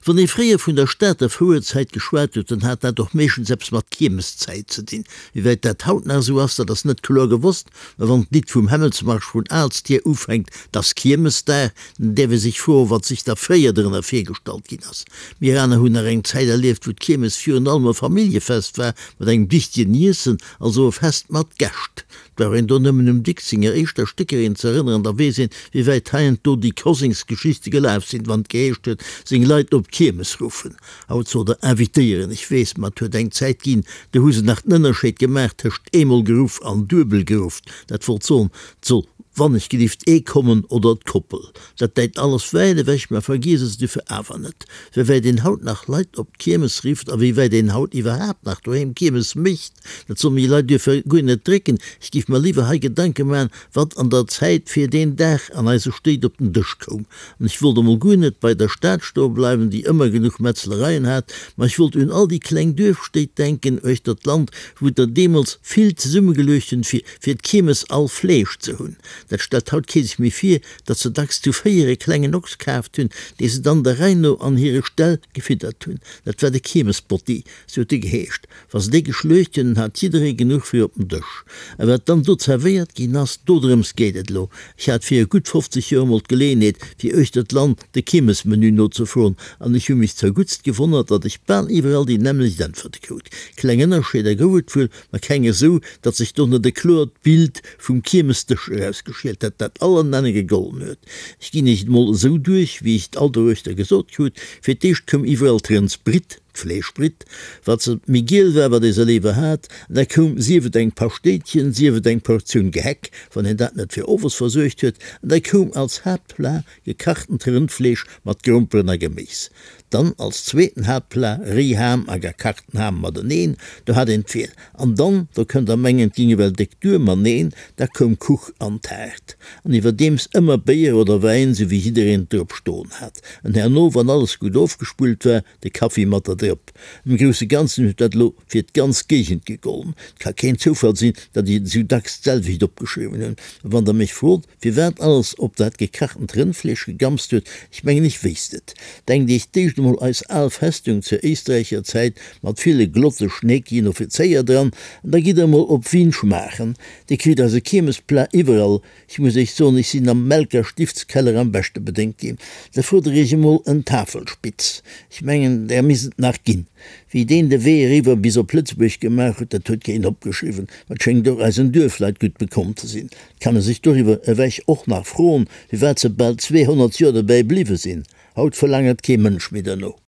Wann ee fréier vun der Stater Fouerzäit geschwat huet, dann hat dat och meeschtens eppes mat Kiermeszäit ze dinn. Wéi wäit dat haut nach esou ass, dat ass net kloer gewosst, mä wann d'Lidd vum Hämmelsmarsch vun Aalstier ufänkt, 't ass Kiermesdag, dann däerf ee sech froen, wat sech da fréier drënner virgestallt ginn ass. Mir aner hunn nach eng Zäit erlieft, wou d'Kiermes virun allem e Familljefest war, mat engem dichtegen Iessen, also e Fest mat Gäscht. Brauch een do nëmmen um Dicks senger éischter Stéckerin ze erënneren, da weess een, wéi wäit heiansdo déi Kosengsgeschichte gelaf sinn, wann et geheescht huet, seng Leit op d'Kiermes ruffen. Haut sot der invitéieren, ech weess, ma et huet eng Zäit ginn, do hu se nach den Ënnerscheed gemaach tëscht eemol geruff an duebel geruff. Dat wollt soen, 't soll wannechgelift ee kommen oder d'Koppel. Dat däit alles wäit ewech, mä vergiess es dofir awer net, wéi wäit een haut nach Leit op d'Kiermes rifft a wéi wäit een haut iwwerhaapt nach doheem Kiermes mécht. Dat soll mir Leit duerfir guer net drécken. Ech giff mer liwwer hei Gedanke man, wat an der Zäit fir deen Dag an eise Stéit op den Dësch koum. An ech wollt emol guer net bei der Stad stoe bleiwen, déi ëmmer genuch Metzlereien hat, ma ech wollt un all déi kleng Duerfstéit denken uechter d'Land, wou der deemools vill zesummegeluecht hunn, fir fir d'Kiermes all Fleesch ze hunn. Dat stellt haut kee sech méi vir, datt se dacks zu véier e klengen Ochs kaaft hunn, dee se dann der Rei no an hire Ställ gefiddert hunn. Dat war de Kiermesbotti, sou huet e geheescht. Wa se déi geschluecht hunn, hat jidderee genuch fir op den Dësch. A wat dann do zerwéiert ginn ass, dodrëms geet et elo. Ech hat viru gutt 50 Joer emol d'Geleeënheet, fir uechter d'Land de Kiermesmenu nozefroen, an ech hu mech zerguttst gewonnert, datt ech bal iwwerall déi nämmlecht Äntwerte krut. Kleng Ënnerscheeder gouf et wuel, ma keng esou, datt sech do net e kloert Bild vum Kiermesdësch erausgeschielt hätt, dat all an Enne gegollen huet. Ech ginn iech et mol esou duerch, wéi ech et all doruechter gesot krut, Fir d'éischt koum iwwerall d'Rëndsbritt, D'Fleeschbritt, wat se méi giel war, wat ee se léiwer hat, an da koum, sief et eng Paschtéitchen, sief et eng Portioun Gehäck, wann een dat net fir owes versuergt huet, an da koum als Haaptplat gekachtent Rëndfleesch mat Gromperen a Geméis. Dann als zweeten Haaptplat Réiham a gekachten Ham mateneen, do hat een d'Wiel. An dann, do kënnt der mengen, et ging ewell déck duer, ma neen, da koum Kuch an Taart. An iwwerdeems ëmmer Béier oder Wäin, sou wéi jiddereen et drop stoen hat. An herno, wann alles gutt ofgespullt war, de Kaffi mat der Drëpp. Am grousse Ganzen huet dat elo fir d'ganz Géigend gegollen. Et ka keen Zoufall sinn, datt ech et esou dacks d'selwecht opgeschriwwen hunn. A wann der mech frot, firwat alles op dat gekachtent Rëndfleesch gegamst huet, ech mengen, ech wéisst et. Denkt iech d'éischt emol eis al Festung zur éisträicher Zäit mat ville glotte schneekien Offizéier dran, an da gitt der emol op Wien schmaachen. Dir kritt eise Kiermesplat iwwerall. Ech muss iech soen, ech sinn am Melker Stiftskeller am beschte bedéngt ginn. Da frot der iech emol en Tafelspitz. Ech mengen, där misst et nach ginn. Wéi deen de Wee eriwwer bis op Lëtzebuerg gemaach huet, dat huet keen opgeschriwwen. Ma et schéngt och eisen Duerfleit gutt bekomm ze sinn. Et kann e sech doriwwer ewech och nach froen, firwat se bal 200 Joer dobäi bliwwe sinn. Haut verlaangert kee Mënsch méi derno.